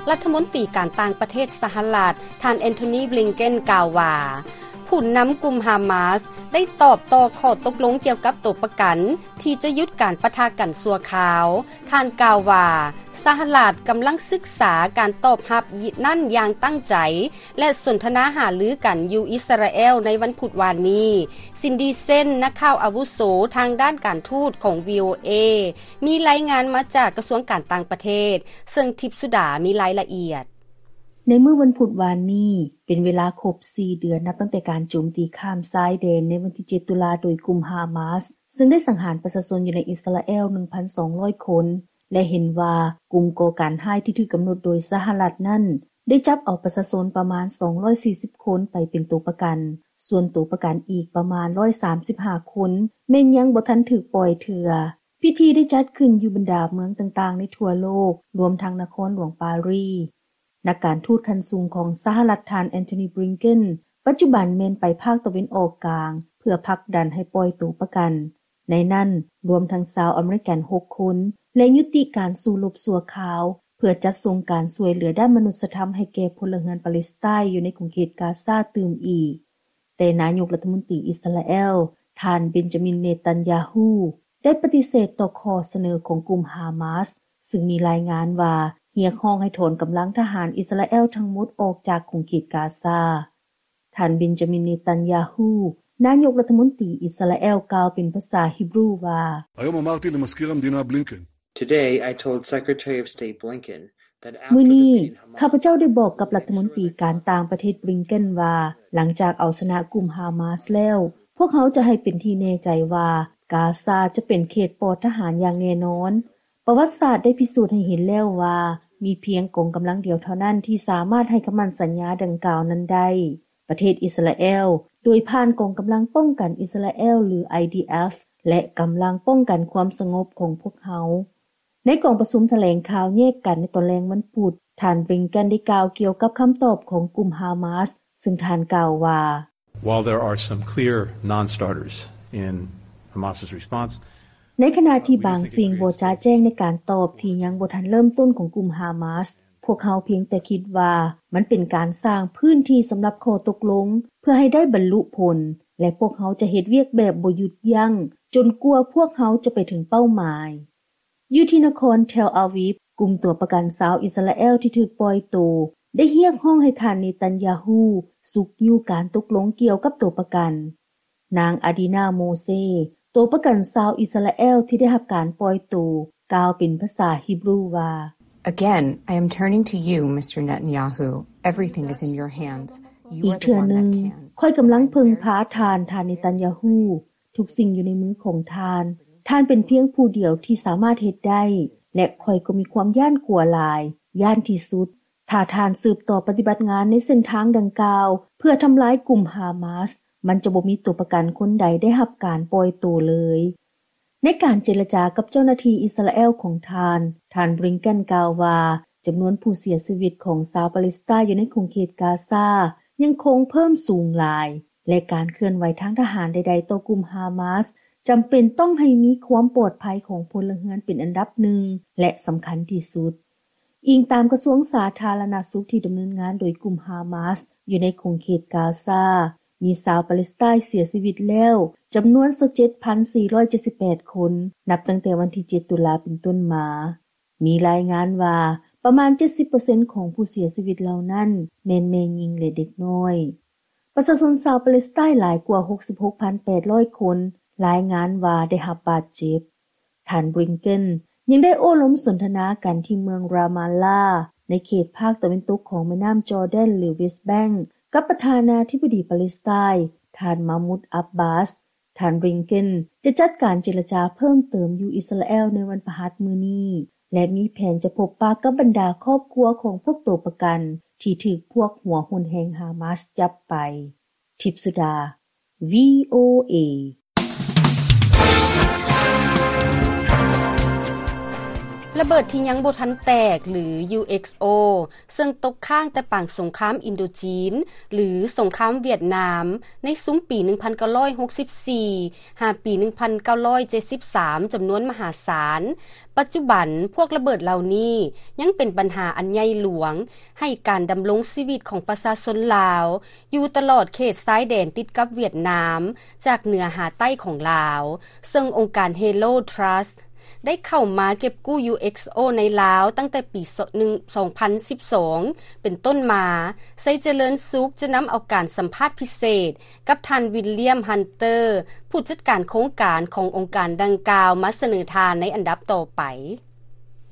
ລັດຖະມົນຕີການຕ່າງປະເທດສະຫະລັດ ທ່ານ ແອນໂທນີ ບລິງເກັນ ກ່າວວ່າ ຜູ້ນຳກຸ່ມຮາມາສໄດ້ຕອບຕໍ່ຂໍ້ຕົກລົງກ່ຽວກັບຕົວປະກັນ ທີ່ຈະຢຸດການປະທະກັນຊົ່ວຄາວ. ທ່ານກ່າວວ່າ ສະຫະລັດກຳລັງສຶກສາການຕອບຮັບນັ້ນຢ່າງຕັ້ງໃຈ ແລະ ສົນທະນາຫາລືກັນຢູ່ອິດສະຣາແອລໃນວັນພຸດວານນີ້. ຊິນດີ ເຊັນ ນັກຂ່າວອາວຸໂສທາງດ້ານການທູດຂອງ ວີໂອເອ ມີລາຍງານມາຈາກກະຊວງການຕ່າງປະເທດ, ເຊິ່ງທິບສຸດາມີລາຍລະອຽດ. ໃນມື້ວັນພຸດວານນີ້ ເປັນເວລາຄົບສີ່ເດືອນ ນັບຕັ້ງແຕ່ການໂຈມຕີຂ້າມຊາຍແດນໃນວັນທີເຈັດຕຸລາໂດຍກຸ່ມຮາມາສ ເຊິ່ງໄດ້ສັງຫານປະຊາຊົນຢູ່ໃນອິດສະຣາແອລໜຶ່ງພັນສອງຮ້ອຍຄົນ ແລະ ເຫັນວ່າກຸ່ມກໍ່ການຮ້າຍທີ່ຖືກກຳນົດໂດຍສະຫະລັດນັ້ນ ໄດ້ຈັບເອົາປະຊາຊົນປະມານສອງຮ້ອຍສີ່ສິບຄົນໄປເປັນຕົວປະກັນ, ສ່ວນຕົວປະກັນອີກປະມານຮ້ອຍສາມສິບຫ້າຄົນ ແມ່ນຍັງບໍ່ທັນຖືກປ່ອຍເທື່ອ. ພິທີໄດ້ຈັດຂຶ້ນຢູ່ບັນດາເມືອງຕ່າງໆໃນທົ່ວໂລກ, ລວມທັງນະຄອນຫຼວງປາຣີ. ນັກການທູດຂັ້ນສູງຂອງສະຫະລັດ ທ່ານ Antony Blinken ປັດຈຸບັນແມ່ນໄປພາກຕາເວັນອອກກາງ ເພື່ອຜັກດັນໃຫ້ປ່ອຍໂຕປະກັນ, ໃນນັ້ນລວມທັງຊາວອາເມລິກັນ ຫົກຄົນ ແລະ ຍຸຕິການສູ້ລົບຊົ່ວຄາວ ເພື່ອຈັດສົ່ງການຊ່ວຍເຫຼືອດ້ານມະນຸດສະທຳໃຫ້ແກ່ພົນລະເຮືອນປາເລສໄຕຢູ່ໃນຂົງເຂດກາຊາຕື່ມອີກ. ແຕ່ນາຍົກລັດຖະມົນຕີອິສຣາແອລ ທ່ານ ເບັນຈາມິນ ເນຕັນຍາຮູ້ ໄດ້ປະຕິເສດຕໍ່ຂໍ້ສະເໜີຂອງກຸ່ມຮາມາສ ຊຶ່ງມີລາຍງານວ່າຮຽກຮ້ອງໃຫ້ຖອນກຳລັງທະຫານອິສຣາແອລທັງໝົດອອກຈາກຂົງເຂດກາຊາ. ທ່ານ ເບັນຈາມິນ ເນຕັນຍາຮູ້ ນາຍົກລັດຖະມົນຕີອິສຣາແອລ ກ່າວເປັນພາສາຮິບຣູວ່າ: היום אמרתי למזכיר המדינה בלינקן, Today, I told Secretary of State Blinken that after ມື້ນີ້ defeating Hamas, ຂ້າພະເຈົ້າໄດ້ບອກກັບລັດຖະມົນຕີການຕ່າງປະເທດ ບລິງເກັນ ວ່າ ຫຼັງຈາກເອົາຊະນະກຸ່ມຮາມາສແລ້ວ, ພວກເຮົາຈະໃຫ້ເປັນທີ່ແນ່ໃຈວ່າກາຊາຈະເປັນເຂດປອດທະຫານຢ່າງແນ່ນອນ. ປະຫວັດສາດໄດ້ພິສູດໃຫ້ເຫັນແລ້ວວ່າ ມີພຽງກອງກຳລັງດຽວເທົ່ານັ້ນທີ່ສາມາດໃຫ້ຄຳໝັ້ນສັນຍາດັ່ງກ່າວນັ້ນໄດ້. ປະເທດອິສຣາແອລ ໂດຍຜ່ານກອງກຳລັງປ້ອງກັນອິສຣາແອລ ຫຼື ໄອດີເອັຟ ແລະ ກຳລັງປ້ອງກັນຄວາມສະຫງົບຂອງພວກເຮົາ. ໃນກອງປະຊຸມຖະແຫຼງຂ່າວແຍກກັນໃນຕອນແລງວັນພຸດ, ທ່ານ ບລິງເກັນ ໄດ້ກ່າວກ່ຽວກັບຄຳຕອບຂອງກຸ່ມຮາມາສ, ຊຶ່ງທ່ານກ່າວວ່າ: While there are some clear non-starters in Hamas's response, ໃນຂະນະທີ່ບາງສິ່ງບໍ່ຈະແຈ້ງໃນການຕອບທີ່ຍັງບໍ່ທັນເລີ່ມຕົ້ນຂອງກຸ່ມຮາມາສ, ພວກເຮົາພຽງແຕ່ຄິດວ່າມັນເປັນການສ້າງພື້ນທີ່ສຳລັບຂໍ້ຕົກລົງ ເພື່ອໃຫ້ໄດ້ບັນລຸຜົນ ແລະ ພວກເຮົາຈະເຮັດວຽກແບບບໍ່ຢຸດຢັ້ງ ຈົນກວ່າພວກເຮົາຈະໄປເຖິງເປົ້າໝາຍ. ຢູ່ທີ່ນະຄອນເທລອາວີບ, ກຸ່ມຕົວປະກັນຊາວອິສຣາແອລທີ່ຖືກປ່ອຍໂຕ ໄດ້ຮຽກຮ້ອງໃຫ້ທ່ານ ເນຕັນຍາຮູ້ ຊຸກຍູ້ການຕົກລົງກ່ຽວກັບຕົວປະກັນ. ນາງ ອາດີນາ ໂມເຊ ຕົວປະກັນຊາວອິສຣາແອລທີ່ໄດ້ຮັບການປ່ອຍໂຕ ກ່າວເປັນພາສາຮິບຣູວ່າ: Again, I am turning to you, Mister Netanyahu. Everything is in your hands. You are the one that can. ອີກເທື່ອໜຶ່ງ, ຂ້ອຍກຳລັງເພິ່ງພາທ່ານ, ທ່ານ ເນຕັນຍາຮູ້. ທຸກສິ່ງຢູ່ໃນມືຂອງທ່ານ. ທ່ານເປັນພຽງຜູ້ດຽວທີ່ສາມາດເຮັດໄດ້ ແລະ ຂ້ອຍກໍມີຄວາມຢ້ານກົວຫຼາຍ, ຢ້ານທີ່ສຸດ. ຖ້າທ່ານສືບຕໍ່ປະຕິບັດງານໃນເສັ້ນທາງດັ່ງກ່າວ ເພື່ອທຳລາຍກຸ່ມຮາມາສ, ມັນຈະບໍ່ມີຕົວປະກັນຄົນໃດໄດ້ຮັບການປ່ອຍໂຕເລີຍ. ໃນການເຈລະຈາກັບເຈົ້າໜ້າທີ່ອິສຣາແອລຂອງທ່ານ, ທ່ານ ບລິງເກັນ ກ່າວວ່າ ຈຳນວນຜູ້ເສຍຊີວິດຂອງຊາວປາເລສໄຕຢູ່ໃນຂົງເຂດກາຊາຍັງຄົງເພີ່ມສູງຫຼາຍ ແລະ ການເຄື່ອນໄຫວທາງທະຫານໃດໆຕໍ່ກຸ່ມຮາມາສ ຈຳເປັນຕ້ອງໃຫ້ມີຄວາມປອດໄພຂອງພົນລະເຮືອນເປັນອັນດັບໜຶ່ງ ແລະ ສຳຄັນທີ່ສຸດ. ອີງຕາມກະຊວງສາທາລະນະສຸກທີ່ດຳເນີນງານໂດຍກຸ່ມຮາມາສຢູ່ໃນຂົງເຂດກາຊາ, ມີຊາວປາເລສໄຕເສຍຊີວິດແລ້ວຈຳນວນຊາວເຈັດພັນສີ່ຮ້ອຍເຈັດສິບແປດຄົນ ນັບຕັ້ງແຕ່ວັນທີເຈັດຕຸລາເປັນຕົ້ນມາ. ມີລາຍງານວ່າປະມານເຈັດສິບເປີເຊັນຂອງຜູ້ເສຍຊີວິດເຫຼົ່ານັ້ນແມ່ນແມ່ຍິງ ແລະ ເດັກນ້ອຍ. ປະຊາຊົນຊາວປາເລສໄຕຫຼາຍກວ່າຫົກສິບຫົກພັນແປດຮ້ອຍຄົນລາຍງານວ່າໄດ້ຮັບບາດເຈັບ. ທ່ານ ບລິງເກັນ ຍັງໄດ້ໂອ້ລົມສົນທະນາກັນທີ່ເມືອງຣາມາລາ ໃນເຂດພາກຕາເວັນຕົກຂອງແມ່ນ້ຳຈໍແດນ ຫຼື ເວສແບັງ ກັບປະທານາທິບໍດີປາເລສໄຕ ທ່ານ ມາມຸດ ອັບບາສ. ທ່ານ ບລິງເກັນ ຈະຈັດການເຈລະຈາເພີ່ມເຕີມຢູ່ອິສຣາແອລໃນວັນພະຫັດມື້ນີ້ ແລະ ມີແຜນຈະພົບປະກັບບັນດາຄອບຄົວຂອງພວກໂຕປະກັນທີ່ຖືກພວກຫົວຮຸນແຮງຮາມາສຈັບໄປ. ທິບສຸດາ ວີໂອເອ. ລະເບີດທີ່ຍັງບໍ່ທັນແຕກ ຫຼື ຢູເອັກໂອ ເຊິ່ງຕົກຄ້າງແຕ່ປາງສົງຄາມອິນໂດຈີນ ຫຼື ສົງຄາມຫວຽດນາມ ໃນຊຸມປີໜຶ່ງພັນເກົ້າຮ້ອຍຫົກສິບສີ່ ຫາປີໜຶ່ງພັນເກົ້າຮ້ອຍເຈັດສິບສາມ ຈຳນວນມະຫາສານ. ປັດຈຸບັນ, ພວກລະເບີດເຫຼົ່ານີ້ຍັງເປັນບັນຫາອັນໃຫຍ່ຫຼວງໃຫ້ການດຳລົງຊີວິດຂອງປະຊາຊົນລາວ ຢູ່ຕະຫຼອດເຂດຊາຍແດນຕິດກັບຫວຽດນາມ ຈາກເໜືອຫາໃຕ້ຂອງລາວ, ເຊິ່ງອົງການ Halo Trust ໄດ້ເຂົ້າມາເກັບກູ້ ຢູເອັກໂອ ໃນລາວຕັ້ງແຕ່ປີ ສອງພັນສິບສອງ ເປັນຕົ້ນມາ. ໄຊຈະເລີນສຸກຈະນຳເອົາການສຳພາດພິເສດກັບທ່ານ ວິນລຽມ ຮັນເຕີ ຜູ້ຈັດການໂຄງການຂອງອົງການດັ່ງກ່າວ ມາສະເໜີທ່ານໃນອັນດັບຕໍ່ໄປ.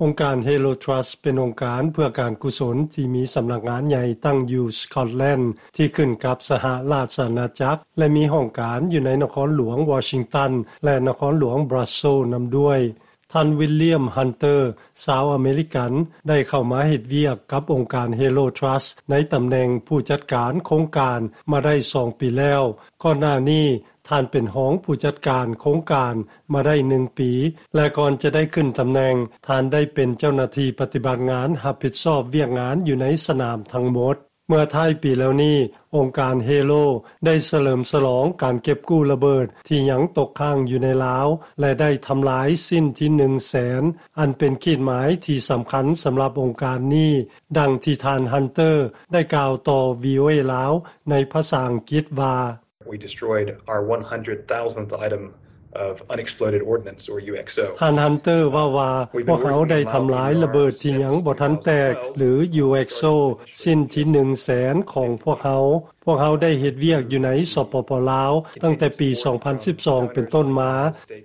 ອົງການ Halo Trust ເປັນອົງການເພື່ອການກຸສົນທີ່ມີສຳນັກງານໃຫຍ່ຕັ້ງຢູ່ Scotland ທີ່ຂຶ້ນກັບສະຫະລາຊະອານາຈັກ ແລະ ມີຫ້ອງການຢູ່ໃນນະຄອນຫຼວງ Washington ແລະ ນະຄອນຫຼວງ Brussels ນຳດ້ວຍ. ທ່ານ ວິນລຽມ ຮັນເຕີ ຊາວອາເມລິກັນ ໄດ້ເຂົ້າມາເຮັດວຽກກັບອົງການ Halo Trust ໃນຕຳແໜ່ງຜູ້ຈັດການໂຄງການມາໄດ້ສອງປີແລ້ວ. ກ່ອນໜ້ານີ້ ທ່ານເປັນຮອງຜູ້ຈັດການໂຄງການມາໄດ້ໜຶ່ງປີ ແລະ ກ່ອນຈະໄດ້ຂຶ້ນຕຳແໜ່ງ, ທ່ານໄດ້ເປັນເຈົ້າໜ້າທີ່ປະຕິບັດງານຮັບຜິດຊອບວຽກງານຢູ່ໃນສະໜາມທັງໝົດ. ເມື່ອທ້າຍປີແລ້ວນີ້, ອົງການ Halo ໄດ້ສະເຫຼີມສະຫຼອງການເກັບກູ້ລະເບີດທີ່ຍັງຕົກຄ້າງຢູ່ໃນລາວ ແລະ ໄດ້ທຳລາຍຊິ້ນທີໜຶ່ງແສນ ອັນເປັນຂີດໝາຍທີ່ສຳຄັນສຳລັບອົງການນີ້, ດັ່ງທີ່ທ່ານ Hunter ໄດ້ກ່າວຕໍ່ VOA ລາວ ໃນພາສາອັງກິດວ່າ: We destroyed our one hundred thousandth item of unexploded ordnance, or U X O. ທ່ານ Hunter ເວົ້າວ່າ, ພວກເຮົາໄດ້ທຳລາຍລະເບີດທີ່ຍັງບໍ່ທັນແຕກ ຫຼື U X O ຊິ້ນທີໜຶ່ງແສນຂອງພວກເຮົາ. ພວກເຮົາໄດ້ເຮັດວຽກຢູ່ໃນ ສປປ ລາວ ຕັ້ງແຕ່ປີສອງພັນສິບສອງເປັນຕົ້ນມາ.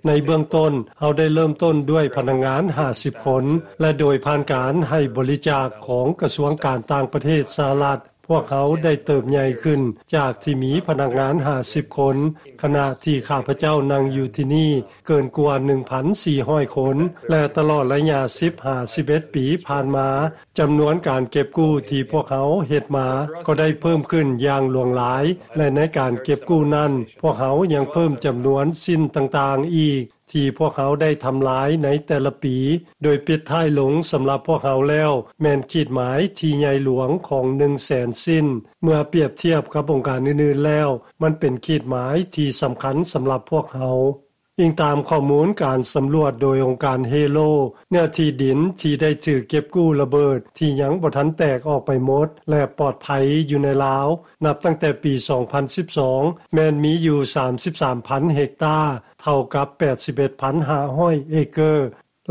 ໃນເບື້ອງຕົ້ນ, ເຮົາໄດ້ເລີ່ມຕົ້ນດ້ວຍພະນັກງານຫ້າສິບຄົນ ແລະ ໂດຍຜ່ານການໃຫ້ບໍລິຈາກຂອງກະຊວງການຕ່າງປະເທດສະຫະລັດ, ພວກເຮົາໄດ້ເຕີບໃຫຍ່ຂຶ້ນຈາກທີ່ມີພະນັກງານຫ້າສິບຄົນ, ຂະນະທີ່ຂ້າພະເຈົ້ານັ່ງຢູ່ທີ່ນີ້ເກີນກວ່າໜຶ່ງພັນສີ່ຮ້ອຍຄົນ ແລະ ຕະຫຼອດໄລຍະສິບຫາສິບເອັດປີຜ່ານມາ, ຈຳນວນການເກັບກູ້ທີ່ພວກເຮົາເຮັດມາກໍໄດ້ເພີ່ມຂຶ້ນຢ່າງຫຼວງຫຼາຍ, ແລະ ໃນການເກັບກູ້ນັ້ນ, ພວກເຮົາຍັງເພີ່ມຈຳນວນຊິ້ນຕ່າງໆອີກ ທີ່ພວກເຮົາໄດ້ທຳລາຍໃນແຕ່ລະປີ, ໂດຍປິດທ້າຍລົງສຳລັບພວກເຮົາແລ້ວ ແມ່ນຂີດໝາຍທີ່ໃຫຍ່ຫຼວງຂອງໜຶ່ງແສນຊິ້ນ. ເມື່ອປຽບທຽບກັບອົງການອື່ນໆແລ້ວ, ມັນເປັນຂີດໝາຍທີ່ສຳຄັນສຳລັບພວກເຮົາ. ອີງຕາມຂໍ້ມູນການສຳຫຼວດໂດຍອົງການ Halo, ເນື້ອທີ່ດິນທີ່ໄດ້ຖືກເກັບກູ້ລະເບີດທີ່ຍັງບໍ່ທັນແຕກອອກໄປໝົດ ແລະ ປອດໄພຢູ່ໃນລາວ, ນັບຕັ້ງແຕ່ປີສອງພັນສິບສອງ ແມ່ນມີຢູ່ສາມສິບສາມພັນເຮັກຕາ, ເທົ່າກັບແປດສິບເອັດພັນຫ້າຮ້ອຍເອເກີ.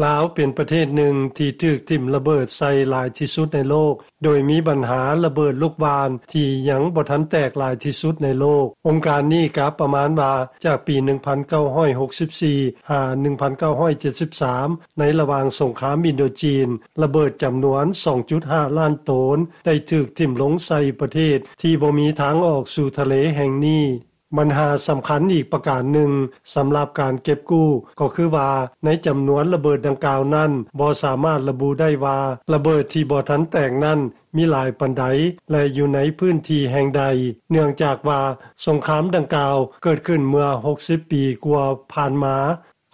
ລາວເປັນປະເທດໜຶ່ງທີ່ຖືກຖິ້ມລະເບີດໃສ່ຫຼາຍທີ່ສຸດໃນໂລກ, ໂດຍມີບັນຫາລະເບີດລູກຫວ່ານທີ່ຍັງບໍ່ທັນແຕກຫຼາຍທີ່ສຸດໃນໂລກ. ອົງການນີ້ກະປະມານວ່າ ຈາກປີໜຶ່ງພັນເກົ້າຮ້ອຍຫົກສິບສີ່ ຫາ ໜຶ່ງພັນເກົ້າຮ້ອຍເຈັດສິບສາມ ໃນລະຫວ່າງສົງຄາມອິນໂດຈີນ, ລະເບີດຈຳນວນສອງຈຸດຫ້າລ້ານໂຕນ ໄດ້ຖືກຖິ້ມລົງໃສ່ປະເທດທີ່ບໍ່ມີທາງອອກສູ່ທະເລແຫ່ງນີ້. ບັນຫາສຳຄັນອີກປະການໜຶ່ງສຳລັບການເກັບກູ້ ກໍຄືວ່າໃນຈຳນວນລະເບີດດັ່ງກ່າວນັ້ນ ບໍ່ສາມາດລະບຸໄດ້ວ່າລະເບີດທີ່ບໍ່ທັນແຕກນັ້ນມີຫຼາຍປານໃດ ແລະ ຢູ່ໃນພື້ນທີ່ແຫ່ງໃດ, ເນື່ອງຈາກວ່າສົງຄາມດັ່ງກ່າວເກີດຂຶ້ນເມື່ອຫົກສິບປີກວ່າຜ່ານມາ.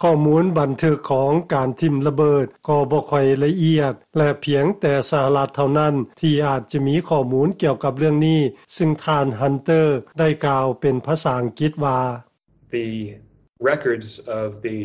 ຂໍ້ມູນບັນທຶກຂອງການຖິ້ມລະເບີດກໍບໍ່ຄ່ອຍລະອຽດ ແລະ ພຽງແຕ່ສະຫະລັດເທົ່ານັ້ນທີ່ອາດຈະມີຂໍ້ມູນກ່ຽວກັບເລື່ອງນີ້, ຊຶ່ງທ່ານ Hunter ໄດ້ກ່າວເປັນພາສາອັງກິດວ່າ: The records of the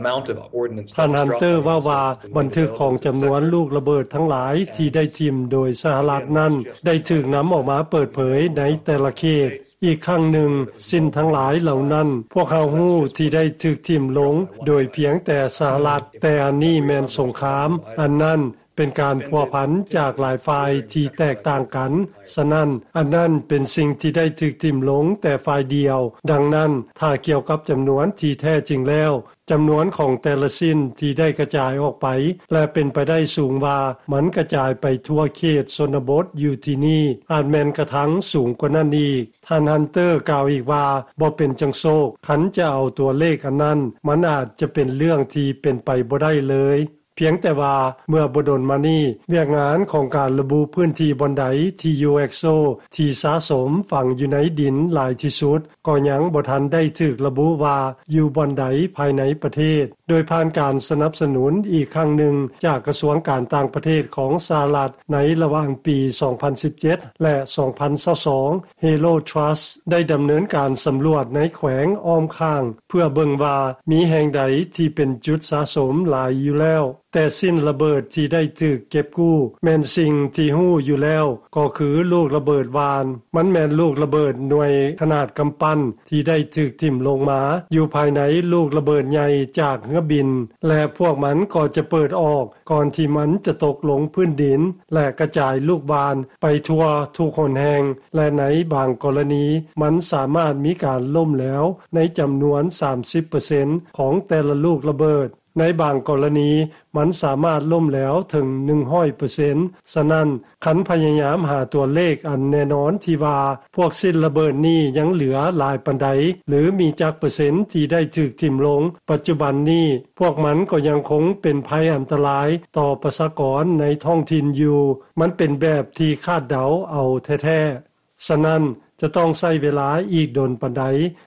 amount of ordnance that was dropped on the United States ທ່ານ Hunter ເວົ້າວ່າ ບັນທຶກຂອງຈຳນວນລູກລະເບີດທັງຫຼາຍທີ່ໄດ້ຖິ້ມໂດຍສະຫະລັດນັ້ນ ໄດ້ຖືກນຳອອກມາເປີດເຜີຍໃນແຕ່ລະເຂດ. ອີກຄັ້ງໜຶ່ງ, ຊິ້ນທັງຫຼາຍເຫຼົ່ານັ້ນ ພວກເຮົາຮູ້ທີ່ໄດ້ຖືກຖິ້ມລົງໂດຍພຽງແຕ່ສະຫະລັດ, ແຕ່ອັນນີ້ແມ່ນສົງຄາມ, ອັນນັ້ນເປັນການພົວພັນຈາກຫຼາຍຝ່າຍທີ່ແຕກຕ່າງກັນ, ສະນັ້ນ, ອັນນັ້ນເປັນສິ່ງທີ່ໄດ້ຖືກຖິ້ມລົງແຕ່ຝ່າຍດຽວ. ດັ່ງນັ້ນ, ຖ້າກ່ຽວກັບຈຳນວນທີ່ແທ້ຈິງແລ້ວ, ຈຳນວນຂອງແຕ່ລະຊິ້ນທີ່ໄດ້ກະຈາຍອອກໄປ ແລະ ເປັນໄປໄດ້ສູງວ່າມັນກະຈາຍໄປທົ່ວເຂດຊົນນະບົດຢູ່ທີ່ນີ້ ອາດແມ່ນກະທັງສູງກວ່ານັ້ນອີກ. ທ່ານ Hunter ກ່າວອີກວ່າ ບໍ່ເປັນຈັ່ງໂຊກ, ຄັນຈະເອົາຕົວເລກອັນນັ້ນ, ມັນອາດຈະເປັນເລື່ອງທີ່ເປັນໄປບໍ່ໄດ້ເລີຍ. ພຽງແຕ່ວ່າເມື່ອບໍ່ດົນມານີ້, ວຽກງານຂອງການລະບຸພື້ນທີ່ບ່ອນໃດທີ່ UXO ທີ່ສະສົມຝັງຢູ່ໃນດິນຫຼາຍທີ່ສຸດ ກໍຍັງບໍ່ທັນໄດ້ຖືກລະບຸວ່າຢູ່ບ່ອນໃດພາຍໃນປະເທດ, ໂດຍຜ່ານການສະໜັບສະໜູນອີກຄັ້ງໜຶ່ງຈາກກະຊວງການຕ່າງປະເທດຂອງສະຫະລັດໃນລະຫວ່າງປີສອງພັນສິບເຈັດ ແລະ ສອງພັນຊາວສອງ, Halo Trust ໄດ້ດຳເນີນການສຳຫຼວດໃນແຂວງອ້ອມຂ້າງ ເພື່ອເບິ່ງວ່າມີແຫ່ງໃດທີ່ເປັນຈຸດສະສົມຫຼາຍຢູ່ແລ້ວ. ແຕ່ຊິ້ນລະເບີດທີ່ໄດ້ຖືກເກັບກູ້ແມ່ນສິ່ງທີ່ຮູ້ຢູ່ແລ້ວ, ກໍຄືລູກລະເບີດຫວ່ານ. ມັນແມ່ນລູກລະເບີດໜ່ວຍຂະໜາດກຳປັ້ນທີ່ໄດ້ຖືກຖິ້ມລົງມາຢູ່ພາຍໃນລູກລະເບີດໃຫຍ່ຈາກເຮືອບິນ, ແລະ ພວກມັນກໍຈະເປີດອອກກ່ອນທີ່ມັນຈະຕົກລົງພື້ນດິນ ແລະ ກະຈາຍລູກຫວ່ານໄປທົ່ວທຸກຫົນແຫ່ງ, ແລະ ໃນບາງກໍລະນີ ມັນສາມາດມີການລົ້ມແຫຼວໃນຈຳນວນສາມສິບເປີເຊັນຂອງແຕ່ລະລູກລະເບີດ. ໃນບາງກໍລະນີ ມັນສາມາດລົ້ມແຫຼວເຖິງໜຶ່ງຮ້ອຍເປີເຊັນ. ສະນັ້ນ, ຄັນພະຍາຍາມຫາຕົວເລກອັນແນ່ນອນທີ່ວ່າພວກຊິ້ນລະເບີດນີ້ຍັງເຫຼືອຫຼາຍປານໃດ ຫຼື ມີຈັກເປີເຊັນທີ່ໄດ້ຖືກຖິ້ມລົງ, ປັດຈຸບັນນີ້ພວກມັນກໍຍັງຄົງເປັນໄພອັນຕະລາຍຕໍ່ປະຊາກອນໃນທ້ອງຖິ່ນຢູ່. ມັນເປັນແບບທີ່ຄາດເດົາເອົາແທ້ໆ. ສະນັ້ນ, ຈະຕ້ອງໃຊ້ເວລາອີກດົນປານໃດ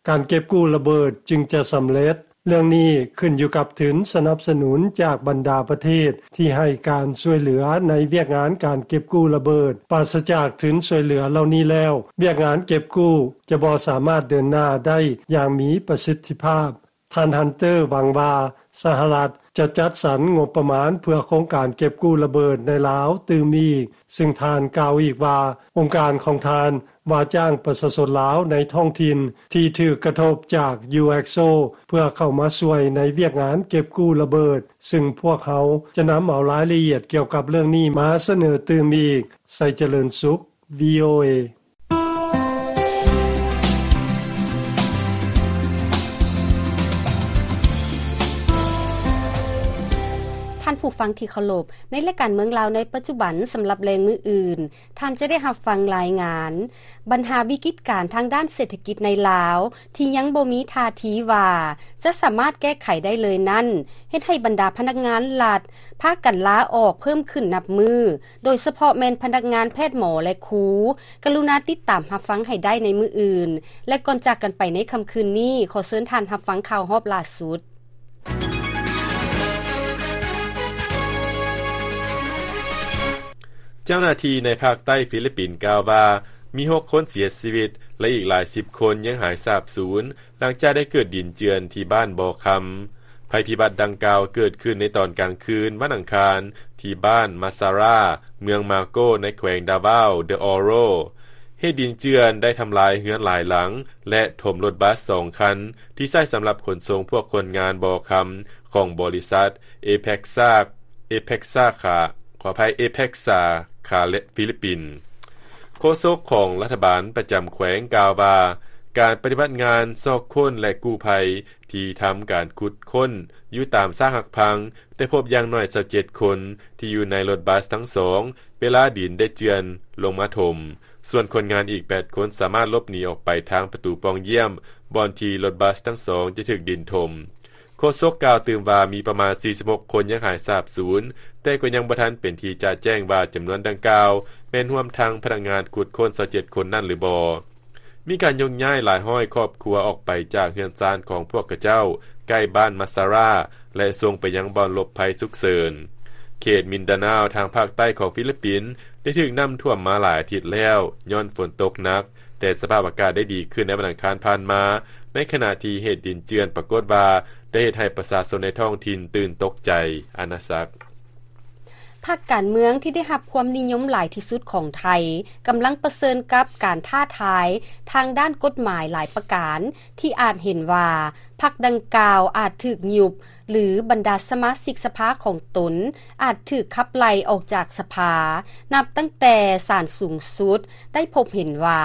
ການເກັບກູ້ລະເບີດຈຶ່ງຈະສຳເລັດ. ເລື່ອງນີ້ຂຶ້ນຢູ່ກັບທຶນສະໜັບສະໜູນຈາກບັນດາປະເທດທີ່ໃຫ້ການຊ່ວຍເຫຼືອໃນວຽກງານການເກັບກູ້ລະເບີດ. ປາສະຈາກທຶນຊ່ວຍເຫຼືອເຫຼົ່ານີ້ແລ້ວ, ວຽກງານເກັບກູ້ຈະບໍ່ສາມາດເດີນໜ້າໄດ້ຢ່າງມີປະສິດທິພາບ. ທ່ານ Hunter ຫວັງວ່າສະຫະລັດຈະຈັດສັນງົບປະມານເພື່ອໂຄງການເກັບກູ້ລະເບີດໃນລາວຕື່ມອີກ, ຊຶ່ງທ່ານກ່າວອີກວ່າ ອົງການຂອງທ່ານວ່າຈ້າງປະຊາຊົນລາວໃນທ້ອງຖິ່ນທີ່ຖືກກະທົບຈາກ UXO ເພື່ອເຂົ້າມາຊ່ວຍໃນວຽກງານເກັບກູ້ລະເບີດ, ຊຶ່ງພວກເຮົາຈະນຳເອົາລາຍລະອຽດກ່ຽວກັບເລື່ອງນີ້ມາສະເໜີຕື່ມອີກ. ໄຊຈະເລີນສຸກ VOA. ທ່ານຜູ້ຟັງທີ່ເຄົາລົບ, ໃນລາຍການເມືອງລາວໃນປັດຈຸບັນ ສຳລັບແລງມື້ອື່ນ, ທ່ານຈະໄດ້ຮັບຟັງລາຍງານ ບັນຫາວິກິດການທາງດ້ານເສດຖະກິດໃນລາວ ທີ່ຍັງບໍ່ມີທ່າທີວ່າຈະສາມາດແກ້ໄຂໄດ້ເລີຍນັ້ນ ເຮັດໃຫ້ບັນດາພະນັກງານລັດພາກັນລາອອກເພີ່ມຂຶ້ນນັບມື້. ໂດຍສະເພາະແມ່ນພະນັກງານແພດ, ໝໍ ແລະ ຄູ. ກະລຸນາຕິດຕາມຮັບຟັງໃຫ້ໄດ້ໃນມື້ອື່ນ ແລະ ກ່ອນຈາກກັນໄປໃນຄ່ຳຄືນນີ້, ຂໍເຊີນທ່ານຮັບຟັງຂ່າວຮອບລ່າສຸດ. ເຈົ້າໜ້າທີ່ໃນພາກໃຕ້ຟີລິບປິນກ່າວວ່າ ມີຫົກຄົນເສຍຊີວິດ ແລະ ອີກຫຼາຍສິບຄົນຍັງຫາຍສາບສູນ ຫຼັງຈາກໄດ້ເກີດດິນເຈື່ອນທີ່ບ້ານບໍ່ຄຳ. ໄພພິບັດດັ່ງກ່າວເກີດຂຶ້ນໃນຕອນກາງຄືນວັນອັງຄານ ທີ່ບ້ານມາຊາຣາ ເມືອງມາໂກ ໃນແຂວງດາວາວ ເດອອໂຣ. ເຫດດິນເຈື່ອນໄດ້ທຳລາຍເຮືອນຫຼາຍຫຼັງ ແລະ ຖົມລົດບັສສອງຄັນ ທີ່ໃຊ້ສຳລັບຂົນສົ່ງພວກຄົນງານບໍ່ຄຳ ຂອງບໍລິສັດ ເອເພັກຊາ ເອເພັກຊາ ຂາ ຂໍອະໄພ ເອເພັກຊາ ຂາ ແລະ ຟີລິບປິນ. ໂຄສົກຂອງລັດຖະບານປະຈຳແຂວງກ່າວວ່າ ການປະຕິບັດງານຊອກຄົ້ນ ແລະ ກູ້ໄພ ທີ່ທຳການຂຸດຄົ້ນຢູ່ຕາມຊາກຫັກພັງ ໄດ້ພົບຢ່າງໜ້ອຍຊາວເຈັດຄົນ ທີ່ຢູ່ໃນລົດບັສທັງສອງ ເວລາດິນໄດ້ເຈື່ອນລົງມາຖົມ. ສ່ວນຄົນງານອີກແປດຄົນສາມາດຫຼົບໜີອອກໄປທາງປະຕູປ່ອງຢ້ຽມ ບ່ອນທີ່ລົດບັສທັງສອງຈະຖືກດິນຖົມ. ໂຄສົກກ່າວຕື່ມວ່າ ມີປະມານສີ່ສິບຫົກຄົນຍັງຫາຍສາບສູນ, ແຕ່ກໍຍັງບໍ່ທັນເປັນທີ່ຈະແຈ້ງວ່າຈຳນວນດັ່ງກ່າວ ແມ່ນຮວມທັງພະນັກງານຂຸດຄົ້ນຊາວເຈັດຄົນນັ້ນຫຼືບໍ່. ມີການຍົກຍ້າຍຫຼາຍຮ້ອຍຄອບຄົວອອກໄປຈາກເຮືອນຊານຂອງພວກຂະເຈົ້າ ໃກ້ບ້ານມາຊາຣາ ແລະ ສົ່ງໄປຍັງບ່ອນຫຼົບໄພສຸກເສີນ. ເຂດມິນດານາວທາງພາກໃຕ້ຂອງຟີລິບປິນ ໄດ້ຖືກນ້ຳຖ້ວມມາຫຼາຍອາທິດແລ້ວ ຍ້ອນຝົນຕົກໜັກ, ແຕ່ສະພາບອາກາດໄດ້ດີຂຶ້ນໃນວັນອັງຄານຜ່ານມາ, ໃນຂະນະທີ່ເຫດດິນເຈື່ອນປາກົດວ່າໄດ້ເຮັດໃຫ້ປະຊາຊົນໃນທ້ອງຖິ່ນຕື່ນຕົກໃຈ. ອານາສັກ. ພັກການເມືອງທີ່ໄດ້ຮັບຄວາມນິຍົມຫຼາຍທີ່ສຸດຂອງໄທ ກຳລັງປະເຊີນກັບການທ້າທາຍທາງດ້ານກົດໝາຍຫຼາຍປະການ ທີ່ອາດເຫັນວ່າພັກດັ່ງກ່າວອາດຖືກຍຸບ ຫຼື ບັນດາສະມາຊິກສະພາຂອງຕົນອາດຖືກຂັບໄລ່ອອກຈາກສະພາ ນັບຕັ້ງແຕ່ສານສູງສຸດໄດ້ພົບເຫັນວ່າ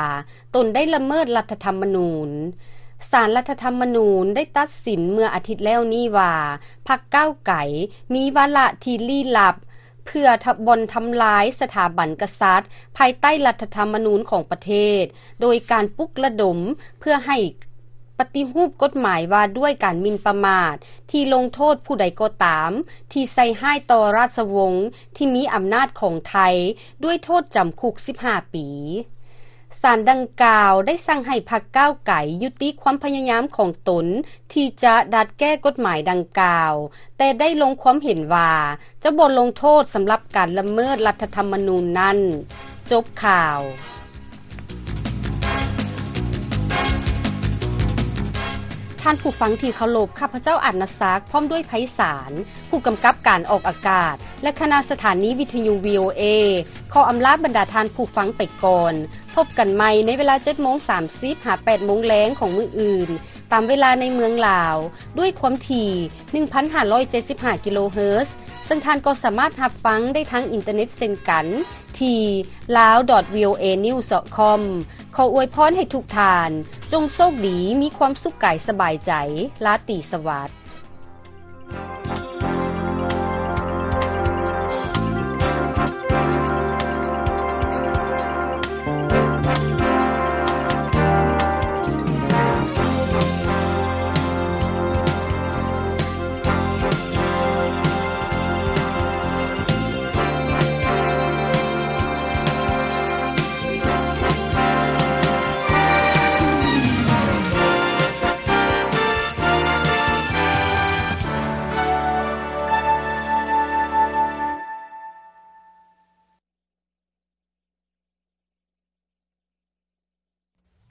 ຕົນໄດ້ລະເມີດລັດຖະທຳມະນູນ. ສານລັດຖະທຳມະນູນໄດ້ຕັດສິນເມື່ອອາທິດແລ້ວນີ້ວ່າ ພັກກ້າວໄກມີວາລະທີ່ລີ້ລັບ ເພື່ອທະ ບ່ອນທຳລາຍສະຖາບັນກະສັດພາຍໃຕ້ລັດຖະທຳມະນູນຂອງປະເທດ ໂດຍການປຸກລະດົມເພື່ອໃຫ້ປະຕິຮູບກົດໝາຍວ່າດ້ວຍການໝິ່ນປະໝາດ ທີ່ລົງໂທດຜູ້ໃດກໍຕາມທີ່ໃສ່ຮ້າຍຕໍ່ລາຊະວົງທີ່ມີອຳນາດຂອງໄທ ດ້ວຍໂທດຈຳຄຸກສິບຫ້າປີ. ສານດັ່ງກ່າວໄດ້ສັ່ງໃຫ້ພັກກ້າວໄກຍຸຕິຄວາມພະຍາຍາມຂອງຕົນທີ່ຈະດັດແກ້ກົດໝາຍດັ່ງກ່າວ, ແຕ່ໄດ້ລົງຄວາມເຫັນວ່າຈະບໍ່ລົງໂທດສຳລັບການລະເມີດລັດຖະທຳມະນູນນັ້ນ. ຈົບຂ່າວ. ທ່ານຜູ້ຟັງທີ່ເຄົາລົບ, ຂ້າພະເຈົ້າ ອາດນະສັກ ພ້ອມດ້ວຍ ໄພສານ ຜູ້ກຳກັບການອອກອາກາດ ແລະ ຄະນະສະຖານີວິທະຍຸ VOA ຂໍອຳລາບັນດາທ່ານຜູ້ຟັງໄປກ່ອນ. ພົບກັນໃໝ່ໃນເວລາເຈັດໂມງສາມສິບ ຫາ ແປດໂມງແລງຂອງມື້ອື່ນ ຕາມເວລາໃນເມືອງລາວ ດ້ວຍຄວາມຖີ່ ໜຶ່ງພັນຫ້າຮ້ອຍເຈັດສິບຫ້າ ກິໂລເຮີດ, ເຊິ່ງທ່ານກໍສາມາດຮັບຟັງໄດ້ທາງອິນເຕີເນັດເຊັ່ນກັນ ທີ່ lawvoanews.com. ຂໍອວຍພອນໃຫ້ທຸກທ່ານ ຈົ່ງໂຊກດີ, ມີຄວາມສຸກກາຍສະບາຍໃຈ. ລາຕີສະຫວັດ.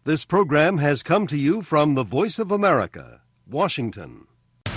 This program has come to you from the Voice of America, Washington.